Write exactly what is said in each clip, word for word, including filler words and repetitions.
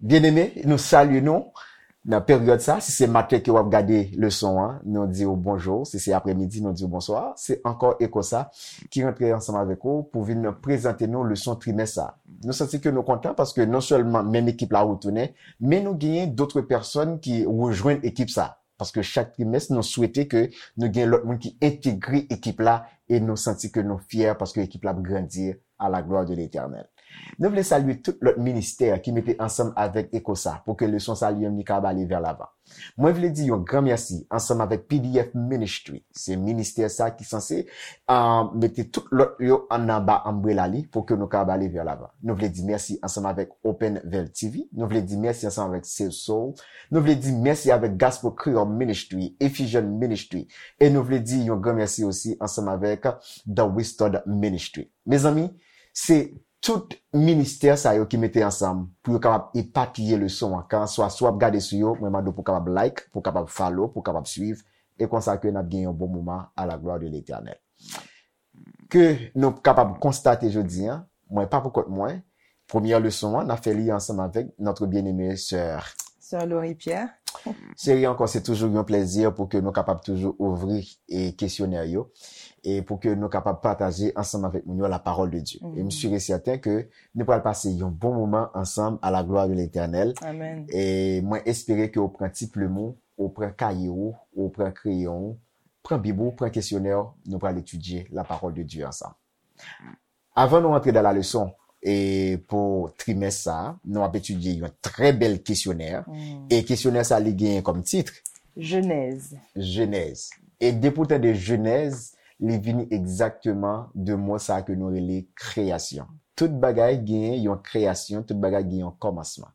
Byeneme, nou salye nou nan peryòd sa. Si se maten ke w ap gade leson an, nou di w bonjou. Si se aprèmidi, nou di w bonswa. Se ankò Ekosa ki rantre ansanm avèk ou pou vin prezante nou leson trimès sa. Nou santi ke nou kontan paske non sèlman menm ekip la retounen, men nou genyen dòt pèsòn ki rejwenn ekip sa. Paske chak trimès, nou swete ke nou gen lòt moun ki entegre ekip la e nou santi ke nou fyè paske ekip la ap grandi à la gloire de l'Éternel. Nou vle salye tout lòt ministè ki mete ansanm avèk Ekosa pou ke leson sa li menm li ka ale vè lavan. Mwen vle di yon gran mèsi ansanm avèk P D F Ministry. Se ministè sa ki sanse ah, mete tout lòt yo ann anba anbrela li pou ke nou ka ale vè lavan. Nou vle di mèsi ansanm avèk Open Veil T V. Nou vle di mèsi ansanm avèk Save Soul. Nou vle di mèsi avèk Gospel Creole Ministry, Ephesian Ministry. E nou vle di yon gran mèsi osi ansanm avèk The Restored Ministry. Mezanmi, se tout ministè sa yo ki mete ansanm pou yo kapab epapiye leson an. Kanswa si w ap gade sou yo, mwen mande w pou w kapab like, pou w kapab follow, pou w kapab swiv. E konsa ke n ap gen yon bon moman à la gloire de l'Éternel. Ke nou kapab konstate jodi an, mwen pa pou kont mwen, premyè leson an, n ap fè li ansanm avèk notre bien-aimée sè. Sè Laurie Pierre. Cheri ankò, se toujou yon plèzi pou ke nou kapab toujou ouvri e kesyonè yo e pou ke nou kapab pataje ansanm avèk moun yo la parole de Dieu. E m sûr et certain ke nou pral pase yon bon moman ansanm à la gloire de l'Éternel. Amen. E mwen espere ke w pran ti plim ou, ou pran kaye ou, ou pran kreyon ou, pran bib ou, pran kesyonè ou, nou pral etidye la parole de Dieu ansanm. Avan nou antre dans la leçon, e pou trimès sa, nou ap etidye yon trè bèl kesyonè. E kesyonè sa, li genyen kòm tit Jenèz. Jenèz. E depi w tande Jenèz, li vini egzakteman de mo sa ke nou rele kreyasyon. Tout bagay genyen yon kreyasyon, tout bagay gen yon kòmansman.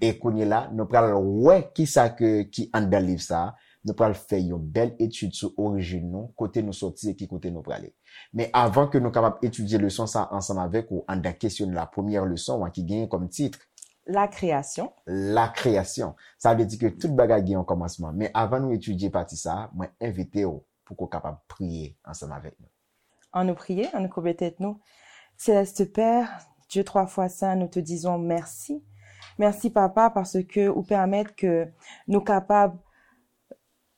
E kounye la, nou pral wè kisa ke, ki anndan liv sa, nou pral fè yon bèl etid sou orijin nou, kote nou sòti e ki kote nou prale. Men avan ke nou kapab etidye leson sa ansanm avèk ou anndan kesyon la, premyè leson an ki genyen kòm tit La kreyasyon. La kreyasyon. Sa vle di ke tout bagay gen yon kòmansman. Men avan nou etidye pati sa, mwen envite w pou ke w kapab priye ansanm avèk nou. Ann nou priye, ann nou koube tèt nou. Céleste Père, Dieu trois fois saint, nous te disons merci. Merci, Papa, paske ou pèmèt ke nou kapab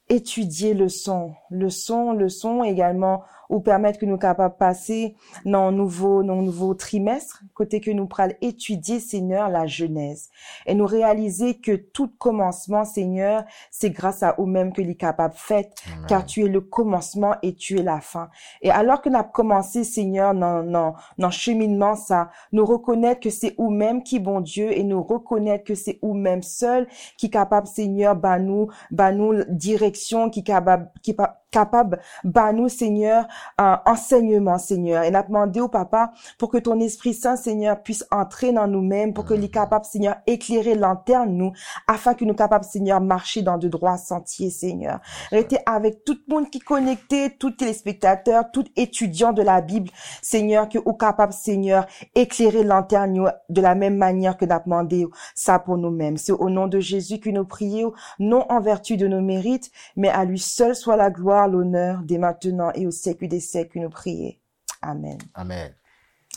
etidye leson, leson, leson, egalman, ou pèmèt ke nou kapab pase nan yon nouvo, nan yon nouvo trimès, kote ke nou pral etidye, Senyè, la Jenèz. E nou reyalize ke tout kòmansman, Senyè, se gras a ou menm ke li kapab fèt, car tu es le commencement et tu es la fin. E alò ke n ap kòmanse, Senyè, nan, nan, nan cheminman sa, nou rekonèt ke se ou menm ki Bondye e nou rekonèt ke se ou menm sèl ki kapab, Senyè, ba nou, ba nou direksyon, ki kapab, ki pa, kapab ba nou, Senyè, euh, ansèyman, Senyè. E n ap mande w, Papa, pour que ton Esprit Saint, Seigneur, puisse entrer dans nous-mêmes, pour que li kapab, Seigneur, éclairer lantèn nou, afin que nou kapab, Seigneur, marcher dans de droits sentiers, Seigneur. Rete avèk tout moun ki konekte, tout telespektatè, tout etidyan de la Bib, Seigneur, ke ou kapab, Seigneur, éclairer lantèn yo de la menm manyè ke n ap mande sa pou nou menm. Se au nom de Jésus que nous prions, non en vertu de nos mérites, mais à lui seul soit la gloire, l'honneur, dès maintenant et au siècle des siècles, nous prions. Amen. Amen.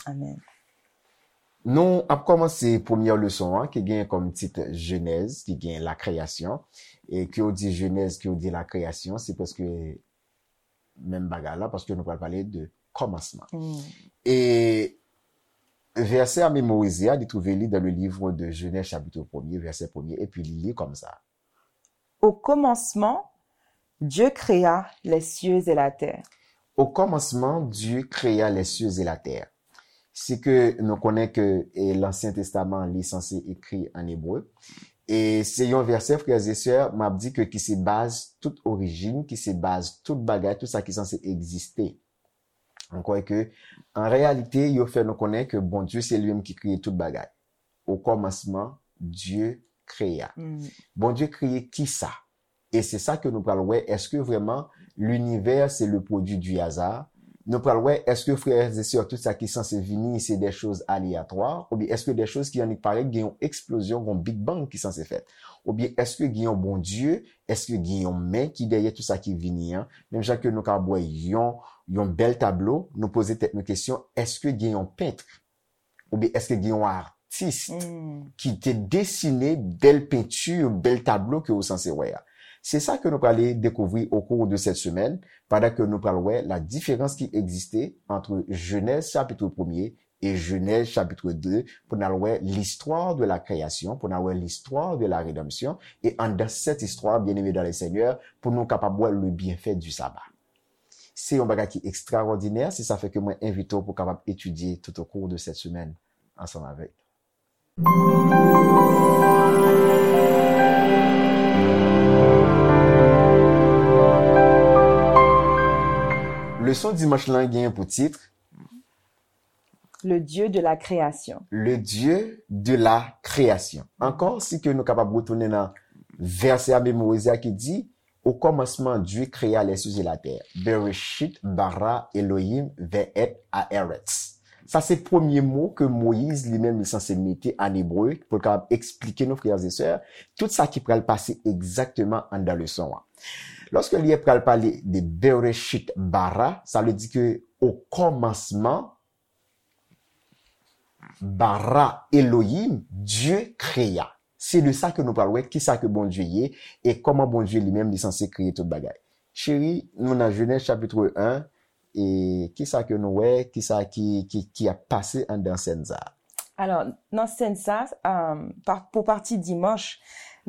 Amen. Nou ap kòmanse premyè leson an ki gen kòm tit Jenèz, ki gen la kreyasyon. E ke w di Jenèz, ke w di la kreyasyon, se prèske menm bagay la, paske nou pral pale de kòmansman. E vèsè a memorize a, li twouve li dans le livre de Genèse chapitre premier, vèsè premye, epi li li kòmsa. Au commencement, Dieu créa les cieux et la terre. Au commencement, Dieu créa les cieux et la terre. Si ke nou konnen ke e, Lansyen Testaman li sanse ekri an ebre. E se yon vèsè, frè e sè, m ap di ke ki se baz tout orijin, ki se baz tout bagay, tout sa ki sanse egziste. Ankò ke, an reyalite, yo fè nou konnen ke Bondye se li menm ki kreye tout bagay. Au commencement, Dieu créa. Bondye kreye kisa? E se sa ke nou pral wè, èske vrèman linivè se le produit du hasard? Nou pral wè, èske frè e sè, tout sa ki sanse vini, se de choz aleyatwa? Oubyen èske de choz ki annik parèt, gen yon eksplozyon, yon Big Bang ki sanse fèt? Oubyen èske gen yon Bondye? Èske gen yon men ki dèyè tout sa ki vini an? Menm jan ke nou ka wè yon, yon bèl tablo, nou poze tèt nou kesyon, èske gen yon pent? Oubyen èske gen yon a, atis ki te desine bèl penti, bèl tablo ke ou sanse wè a. Se sa ke nou prale dekouvri au cours de cette semaine, pandan ke nou pral wè la différence qui existait entre Genèse chapitre premier et Genèse chapitre deux, pou n al wè l'histoire de la création, pou n al wè l'histoire de la rédemption, e anndan cette histoire, bien-aimés dans le Seigneur, pou nou kapab wè le bienfait du sabbat. Se yon bagay ki ekstraòdinè, se sa fè ke mwen envite w pou kapab etidye tout au cours de cette semaine ansanm avèk nou. Leson dimanch lan gen pou tit Le Dieu de la création. Le Dieu de la création. Ankò, si ke nou kapab retounen nan vèsè a, memorize a ki di, au commencement, Dieu créa les cieux et la terre. Bereshit bara Elohim ve'et haaretz. Sa se premye mo ke Moyiz li menm li sanse mete an ebre pou l kapab eksplike nou, frères et sœurs, tout sa ki pral pase egzakteman anndan leson an. Lòske li pral pale de Bereshit bara, sa vle di ke o kòmansman, bara Elohim, Dieu créa. Se de sa ke nou pral wè, kisa ke Bondye ye, e kòman Bondye li menm li sanse kreye tout bagay. Cheri, nou nan Jenèz chapitre un, e kisa ke nou wè, kisa ki, ki, ki ap pase anndan sèn sa a? Alò, nan sèn sa, um, pa, pou pati dimanch,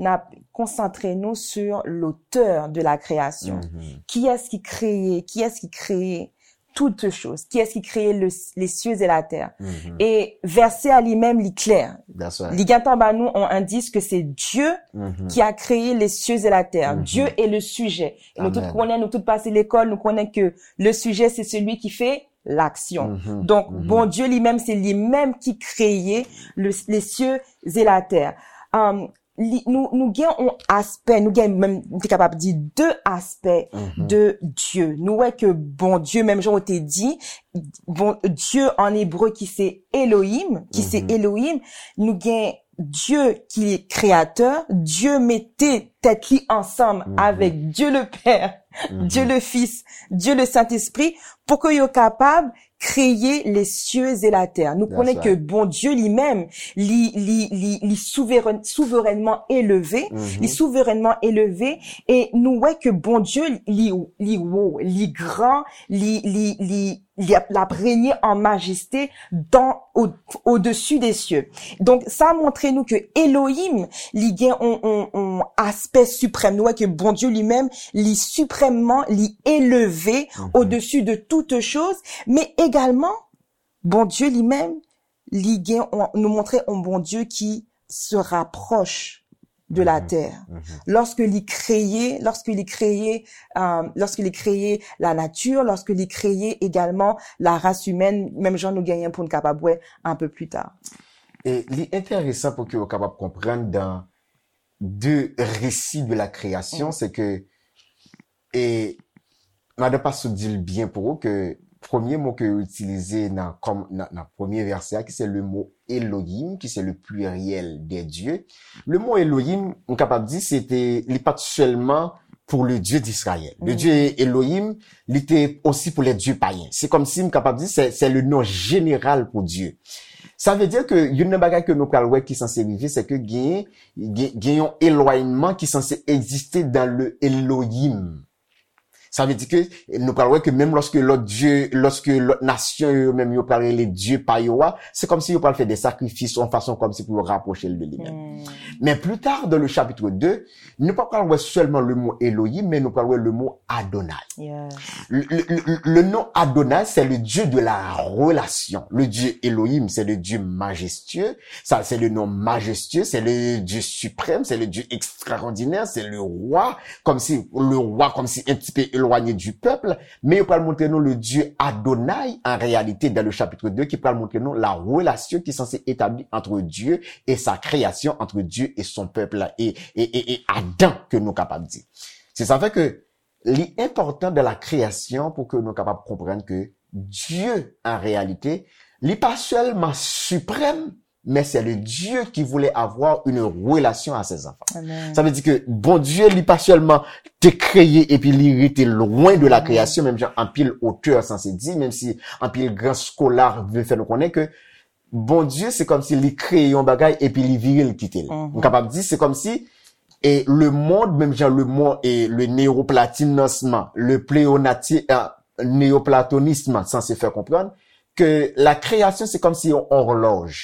n ap konsantre nou sur l'auteur de la création. Kiyès ki kreye, kiyès ki kreye toutes choses? Kiyès ki kreye le, les cieux et la terre? E vèsè a li menm, li klè. That's right. Li gentan ba nou yon endis ke se Dieu qui a créé les cieux et la terre. Dieu est le sujet. E nou tout Amen. Konnen, nou tout pase lekòl, nou konnen ke le sujet, c'est celui qui fait l'action. Donk, Bondye li menm, se li menm ki kreye le, les cieux et la terre. Um, li, nou, nou gen yon aspè, nou gen menm, nou te kapab di de aspè de Dieu. Nou wè ke Bondye, menm jan ou te di, bon, Dieu en hébreu ki se Elohim, ki se Elohim, nou gen Dieu ki kreyatè, Dieu mete tèt li ansanm avèk Dieu le Père, Dieu le Fils, Dieu le Saint-Esprit, pou ke yo kapab kreye les cieux et la terre. Nou konnen ke Bondye li menm, li, li, li, li souveren, souverènman eleve, li souverènman eleve, e nou wè ke Bondye li, li wo, li gran, li, li, li, li ap, l ap renye an majeste dans, au, au-dessus des cieux. Donk, sa montre nou ke Elohim, li gen yon, yon, yon aspè siprèm. Nou wè ke Bondye li menm, li siprèmman, li eleve au-dessus de toutes choses, men egalman, Bondye li menm, li gen, yon, nou montre yon Bondye ki se rapproche de la terre. Lorsque li kreye, lorsque li kreye, euh, lorsque li kreye la nature, lorsque li kreye également la race humaine, menm jan nou genyen pou n kapab wè un peu plus tard. E li enteresan pou ke w kapab konprann dans deux récits de la création, se ke, e madan Pastè di l byen pou ou ke premye mo ke yo itilize nan, kòm, nan, nan premye vèsè a, ki se le mo Elohim, ki se le pluriel des dieux. Le mo Elohim, m kapab di, se te, li pa t sèlman pour le Dieu d'Israël. Le Dieu Elohim, li te osi pou les dieux païens. Se kòmsi m kapab di, se, se le nom général pour Dieu. Sa vle di ke youn nan bagay ke nou pral wè ki sanse rive, se ke gen, gen, gen yon elwanyman ki sanse egziste dans le Elohim. Sa vle di ke nou pral wè ke menm lòske lòt dye, lòske lòt nasyon yo, yo menm yo pral rele dye pa yo a, se kòmsi yo pral fè de sakrifis yon fason kòmsi pou yo rapwoche l de li menm. Men pli ta, dans le chapitre deux, nou pa pral wè sèlman le mo Elohim, men nou pral wè le mo Adonai. Yes. Le, le, le, le nom Adonai, c'est le Dieu de la relation. Le Dieu Elohim, c'est le Dieu majestueux. Ça, c'est le nom majestueux, c'est le Dieu suprême, c'est le Dieu extraordinaire, c'est le roi, comme si le roi, comme si un petit peu éloigné du peuple. Men yo pral montre nou le Dieu Adonai, en réalité, dans le chapitre deux, ki pral montre nou la relation ki sanse etabli entre Dieu et sa création, entre Dieu et son peuple, et, et, et, et Adam, ke nou kapab di. Se sa fè ke li enpòtan dans la création pou ke nou kapab konprann ke Dieu, en réalité, li pa sèlman siprèm, mais c'est le Dieu qui voulait avoir une relation à ses enfants. Amen. Sa vle di ke Bondye, li pa sèlman te kreye epi li rete lwen de la création, menm jan anpil otè sanse di, menm si anpil gran skola vle fè nou konnen ke Bondye, se kòmsi li kreye yon bagay epi li vire l kite l. M kapab di, se kòmsi e le monde, menm jan le monde, e le néoplatonisme, euh, néoplatonisme sanse fè konprann ke la création se kòmsi yon òlòj.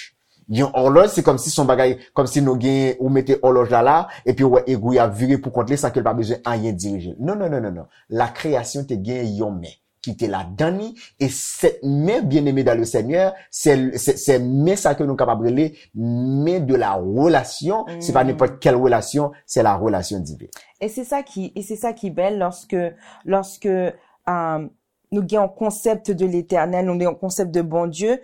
Yon òlòj, se kòmsi se yon bagay, kòmsi nou gen, ou mete òlòj la la, epi ou wè egwi ap vire pou kont li, san ke l pa bezwen anyen dirije l. Non, non, non, non, non. La création te gen yon men ki te ladan li, e cette main bien-aimée dans le Seigneur, c'est, c'est, c'est men sa ke nou kapab rele men de la relation, se pa nenpòt kèl relasyon, c'est la relation divine. Et c'est ça qui, et c'est ça qui est belle lorsque, lorsque euh, nous avons un concept de l'éternel, nous avons un concept de bon Dieu,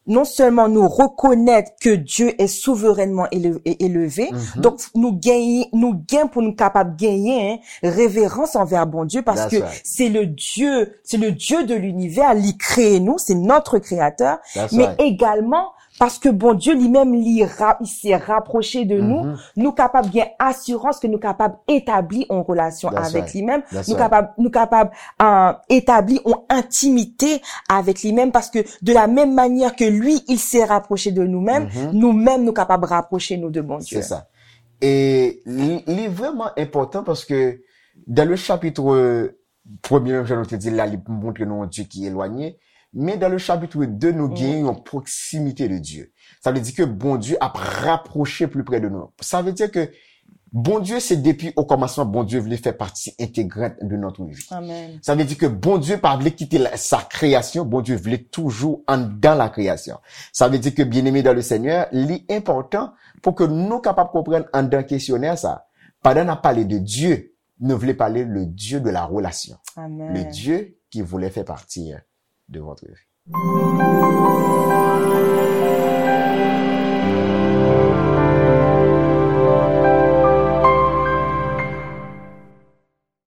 non seulement nous reconnaître que Dieu est souverainement élevé, élevé, donc nous gagnons, nous gagnons pour nous capables de gagner hein, révérence envers bon Dieu parce que c'est le Dieu, c'est le Dieu de l'univers, il crée nous, c'est notre créateur, mais également parce que bon Dieu lui-même il s'est rapproché de nous, nous capables bien assurance que nous capables établir en relation avec lui-même, nous capables, nous capables euh, établir en intimité avec lui-même parce que de la même manière que lui, il s'est rapproché de nous-mêmes, nous-mêmes, nous capables rapprocher nous de bon Dieu. C'est ça. Et li, li vraiment important parce que dans le chapitre premier, menm jan nou te di la, li montre nou yon Dieu qui est éloigné. Mais dans le chapitre deux, nous gagnons une proximité de Dieu. Ça veut dire que bon Dieu a rapproché plus près de nous. Ça veut dire que Bondye se depi o kòmansman Bondye vle fè pati entegrant de notre vie. Amen. Sa vle di ke Bondye pa vle kite sa kreyasyon, Bondye vle toujou anndan la kreyasyon. Sa vle di ke byeneme dan le Senyè, li enpòtan pou ke nou kapab konprann anndan kesyonè sa. Pandan n ap pale de Dye, nou vle pale le Dieu de la relation. Amen. Le Dieu qui voulait faire partie de votre vie.